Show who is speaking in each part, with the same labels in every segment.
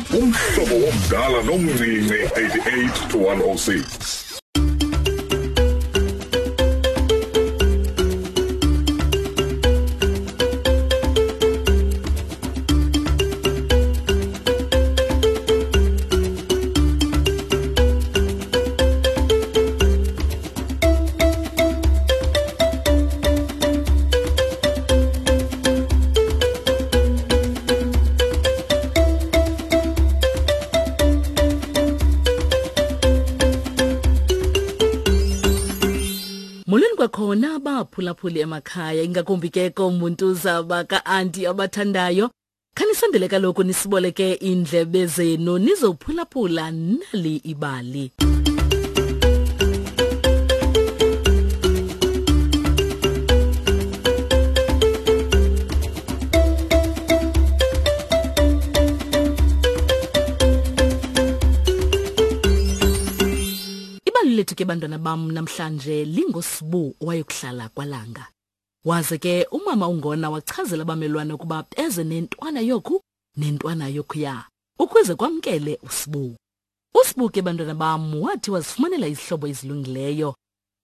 Speaker 1: Umhlobo womdala nomncinci 88 to 106.
Speaker 2: Molweni kwakhona abaphulaphuli emakhaya ingakumbi ke komuntuza baka-anti abathandayo. Khanisondele kaloku nisiboleke iindlebe zenu nizophulaphula nali ibali. Ibali lethu ke bantwana bam namhlanje lingoSibu owayokuhlala kwaLanga. Waze ke umama uNgona wachazela abamelwane ukuba beze nentwana yoku nentwana yokuya ukuze kwamkele uSibu. USibu ke bantwana bam wathi wazifumanela izihlobo ezilungileyo.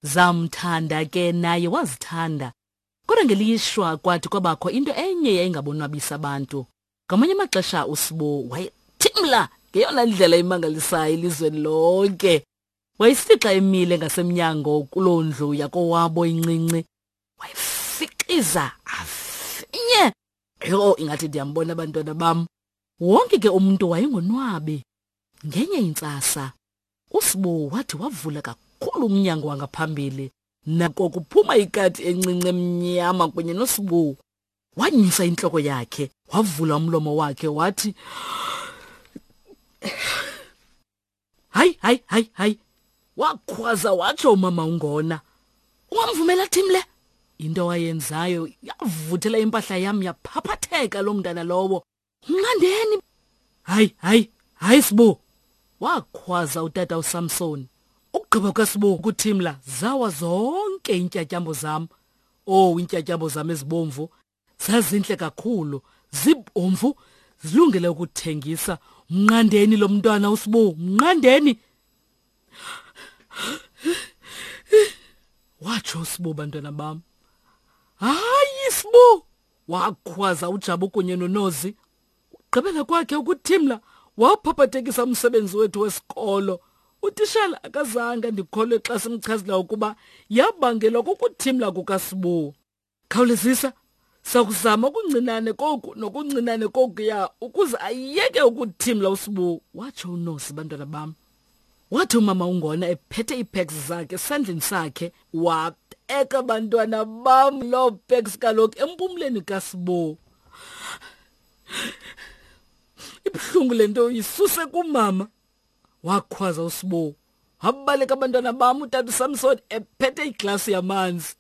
Speaker 2: Zamthanda ke naye wazithanda. Kodwa ngelishwa kwathi kwabakho into enye yayingabonwabisa abantu. Ngamanye amaxesha uSibu wayethimla ngeyona ndlela imangalisayo elizweni lonke. Wayesithi xa emile ngasemnyango kuloo ndlu yakowabo incinci wayefixiza afinye. Yho, ingathi ndiyambona abantwana bam. Wonke ke umntu wayengonwabi. Ngenye intsasa, uSibu wathi wavula kakhulu umnyango wangaphambili. Nako kuphuma ikati encinci emnyama kunye noSibu. Wanyusa intloko yakhe, wavula umlomo wakhe wathi, Hayi, hayi, hayi, hayi. Wakhwaza watsho umama uNgona. Ungamvumela Thimle? Into awayenzayo yavuthela impahla yam yaphaphatheka loo mntana lowo. Mnqandeni. Hayi, hayi, hayi Sibu. Wakhwaza utata uSamson. Ukugqiba kwaSibu ukuthimla zawa zonke iintyatyambo zam. Oh, iintyatyambo zam ezibomvu zazintle kakhulu, zibomvu, zilungele ukuthengisa. Mnqandeni lo mntwana uSibu, mnqandeni. Watsho uSibu, bantwana bam. Hayi Sibu, wakhwaza uJabu kunye noNozi. Ugqibela kwakhe ukuthimla waphaphathekisa umsebenzi wethu wesikolo. Utishala akazange andikholwe xa simchazela ukuba yabangelwa kukuthimla kukaSibu. Khawulezisa, sakuzama okuncinane koku nokuncinane kokuya ukuze ayeke ukuthimla uSibu, watsho uNosi, bantwana bam. Wathi umama uNgona ephethe iipacks zakhe esandleni sakhe, wabeka bantwana bam loo packs kaloku empumleni kaSibu. Ibuhlungu le nto yisuse kumama, wakhwaza uSibu. Wabaleka abantwana bam utata uSamson ephethe iglasi yamanzi.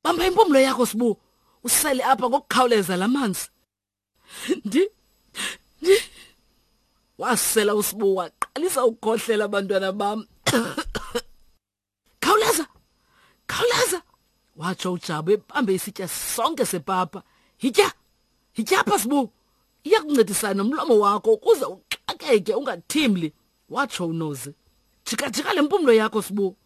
Speaker 2: Bamba impumlo yakho Sibu, usele apha ngokukhawuleza la manzi. Ndi ndi wasela uSibu waqalisa ukukhohlela abantwana bam. Khawuleza! Khawuleza! Watsho uJabu ebambe isitya sonke sepapa. Yitya! Yitya apha Sibu! Iyakuncedisana nomlomo wakho ukuze uxakeke ungathimli, watsho uNozi. Jika-jika le mpumlo yakho Sibu.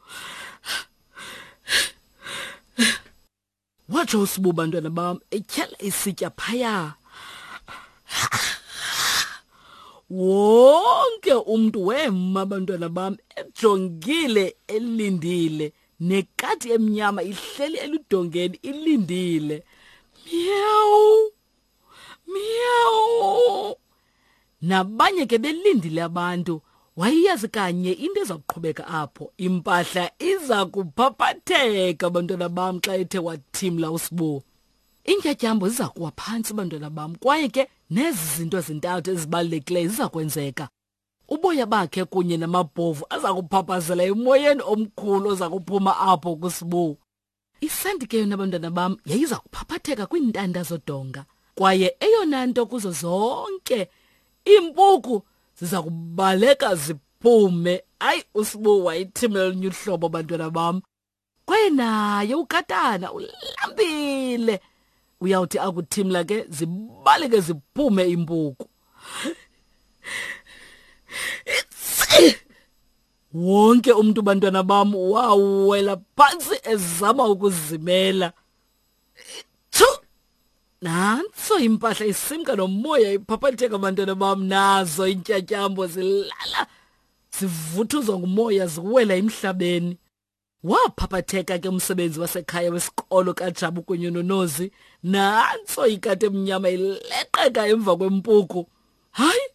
Speaker 2: Watsho uSibu bantwana bam etyhala isitya phaya. Wonke umntu wema bantwana bam ejongile elindile, nekati emnyama ihleli eludongeni ilindile. Miyawu! Miyawu! Nabanye ke belindile abantu. Wayeyazi kanye into eza kuqhubeka apho. Impahla iza kuphaphatheka bantwana bam xa ethe wathimla uSibu. Iintyatyambo ziza kuwa phantsi bantwana bam, kwaye ke nezi zinto zintathu ezibalulekileyo ziza kwenzeka. Uboya bakhe kunye namabhovu aza kuphaphazela emoyeni omkhulu oza kuphuma apho kuSibu. Isanti ke yona bantwana bam yayiza kuphaphatheka kwiintanda zodonga, kwaye eyona nto kuzo zonke iimpuku ziza kubaleka ziphume. Hayi, uSibu wayithimela olunye uhlobo bantwana bam. Kwaye naye ukatana ulambile, uyawuthi akuthimla ke zibaleke ziphume iimpuku. Wonke umntu bantwana bam wawela phantsi ezama ukuzimela. Tshu! Nantso impahla isimka nomoya iphaphatheka bantwana bam nazo iintyatyambo zilala zivuthuzwa ngumoya ziwela emhlabeni. Waphaphatheka ke umsebenzi wasekhaya wesikolo kaJabu kunye noNozi. Nantso ikati emnyama ileqeka emva kwempuku. Hayi,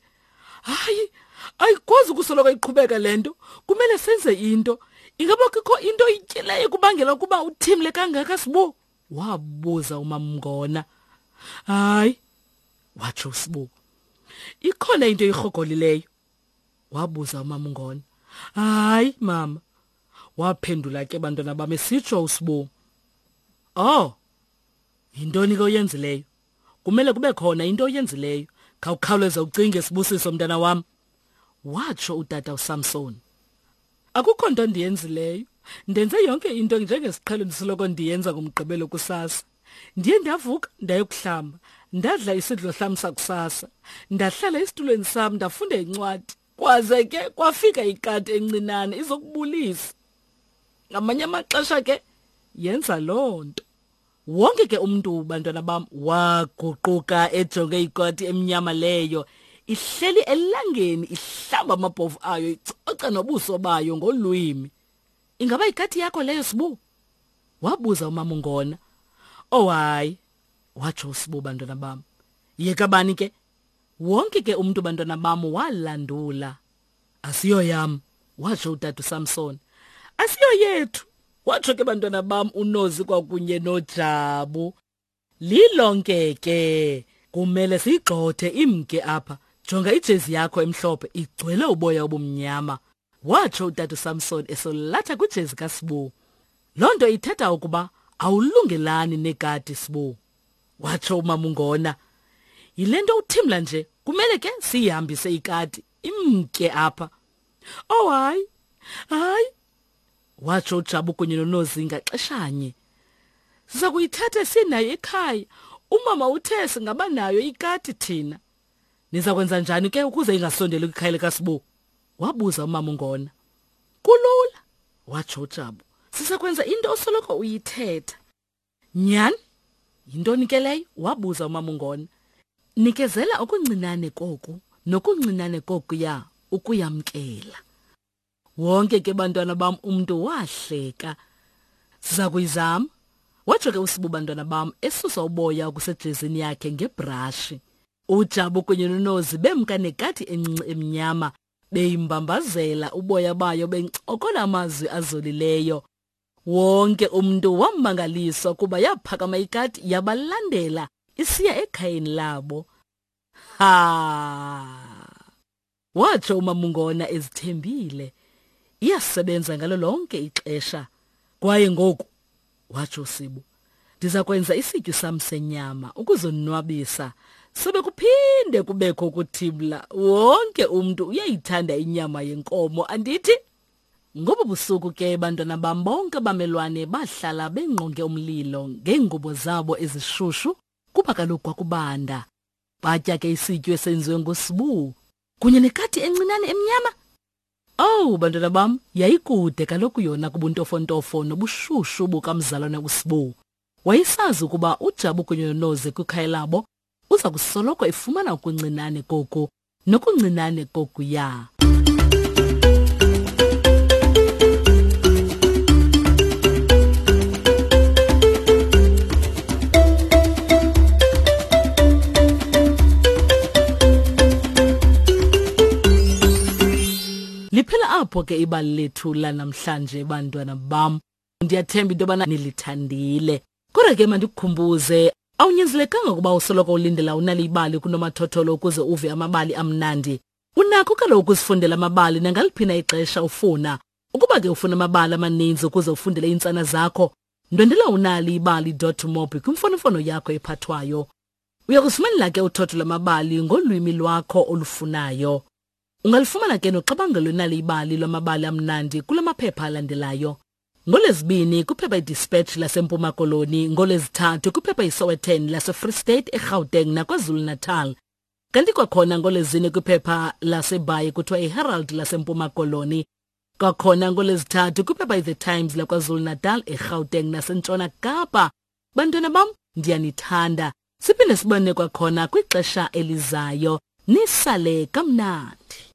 Speaker 2: hayi, ayikwazi ukusoloko iqhubeka le nto. Kumele senze into. Ingaba kukho into oyityileyo kubangela ukuba uthimle kangaka Sibu? Wabuza uMamngona. Hayi, watsho uSibu. Ikhona into oyirhogolileyo? Wabuza uMamngona. Hayi, mama. Waphendula ke bantwana bam esitsho uSibu. Oh, yintoni ke oyenzileyo? Kumele kube khona into oyenzileyo. Khawukhawuleze ucinge Sibusiso mntana wam. Watsho utata uSamson. Akukho nto ndiyenzileyo. Ndenze yonke into njengesiqhelo ndisoloko ndiyenza ngomgqibelo kusasa. Ndiye ndavuka ndayokuhlamba, ndadla isidlo sam sakusasa, ndahlala esitulweni sam ndafunda incwadi. Kwaze ke kwafika ikati encinane izokubulisa. Ngamanye amaxesha ke yenza loo nto. Wonke ke umntu bantwana bam waguquka ejonge ikati emnyama leyo ihleli elangeni ihlamba amabhovu ayo icoca nobuso bayo ngolwimi. Ingaba ikati yakho leyo Sibu? Wabuza umama uNgona. Oh hayi, watsho uSibu bantwana bam. Yeka bani ke? Wonke ke umntu bantwana bam walandula. Asiyo yam, watsho utata uSamson. Asiyo yethu, watsho ke bantwana bam uNozi kwakunye noJabu. Lilonke ke kumele siyigxothe imke apha. Jonga ijezi yakho emhlophe igcwele uboya obumnyama, watsho utata uSamson esolatha kwijezi kaSibu. Loo nto ithetha ukuba awulungelani nekati Sibu, watsho uMamungona. Yile nto uthimla nje, kumele ke siyihambise ikati imke apha. Oh hayi, hayi, watsho uJabu kunye noNozi ngaxeshanye. Siza kuyithatha sinayo ekhaya. Umama uthe singaba nayo ikati thina. Niza kwenza njani ke ukuze ingasondeli kwikhaya likaSibu? Wabuza umama uNgona. Kulula, watsho uJabu. Siza kwenza into osoloko uyithetha. Nyhani? Yintoni ke leyo? Wabuza umama uNgona. Nikezela okuncinane koku nokuncinane kokuya ukuyamkela. Wonke ke bantwana bam umntu wahleka. Siza kuyizama, watsho ke uSibu bantwana bam esusa uboya okusejezini yakhe ngebrashi. UJabu kunye noNozi bemka nekati encinci emnyama beyimbambazela uboya bayo bencokola amazwi azolileyo. Wonke umntu wamangaliswa kuba yaphakama ikati yabalandela isiya ekhayeni labo. Ha! Watsho uMamungona ezithembile. Iyasebenza ngalo lonke ixesha. Kwaye ngoku, watsho uSibu, ndiza kwenza isityu sam senyama ukuzonwabisa. Sobe kuphinde kubekho ukuthimla. Wonke umntu uyayithanda inyama yenkomo, andithi? Ngobo busuku ke bantwana bam bonke abamelwane bahlala bengqonge umlilo ngeengubo zabo ezishushu kuba kaloku kwakubanda. Batya ke isityu esenziwe nguSibu kunye nekati encinane emnyama. Owu bantwana bam, yayikude kaloku yona kubuntofontofo nobushushu bukamzalwane uSibu. Wayesazi ukuba uJabu kunye noNozi kwikhaya labo uza kusoloko efumana okuncinane koku nokuncinane kokuya. Liphela apho ke ibali lethu lanamhlanje bantwana bam. Ndiyathemba into yobana nilithandile. Kodwa ke mandikukhumbuze, awunyanzelekanga ukuba usoloko ulindela unale ibali kunomathotholo ukuze uve amabali amnandi. Unakho kaloku ukuzifundela amabali nangaliphi na ixesha ufuna. Ukuba ke ufuna amabali amaninzi ukuze ufundele iintsana zakho, ndwendela unaliibali.mobi kwimfonomfono yakho ephathwayo. Uya kuzifumanela ke uthotho lwamabali ngolwimi lwakho olufunayo. Ungalifumana ke noxabangelo lwenali ibali lwamabali amnandi kula maphepha alandelayo. NgoLwezibini kwiphepha iDispatch laseMpuma Koloni, ngoLwezithathu kwiphepha iSowetan laseFree State, eGauteng naKwaZulu-Natal. Kanti kwakhona ngoLwezine kwiphepha laseBhayi kuthiwa iHerald laseMpuma Koloni. Kwakhona ngolwezithathu kwiphepha iThe Times laKwaZulu-Natal, eGauteng naseNtshona Kapa. Bantwana bam, ndiyanithanda. Siphinde sibone kwakhona kwixesha elizayo. Nisale kamnandi.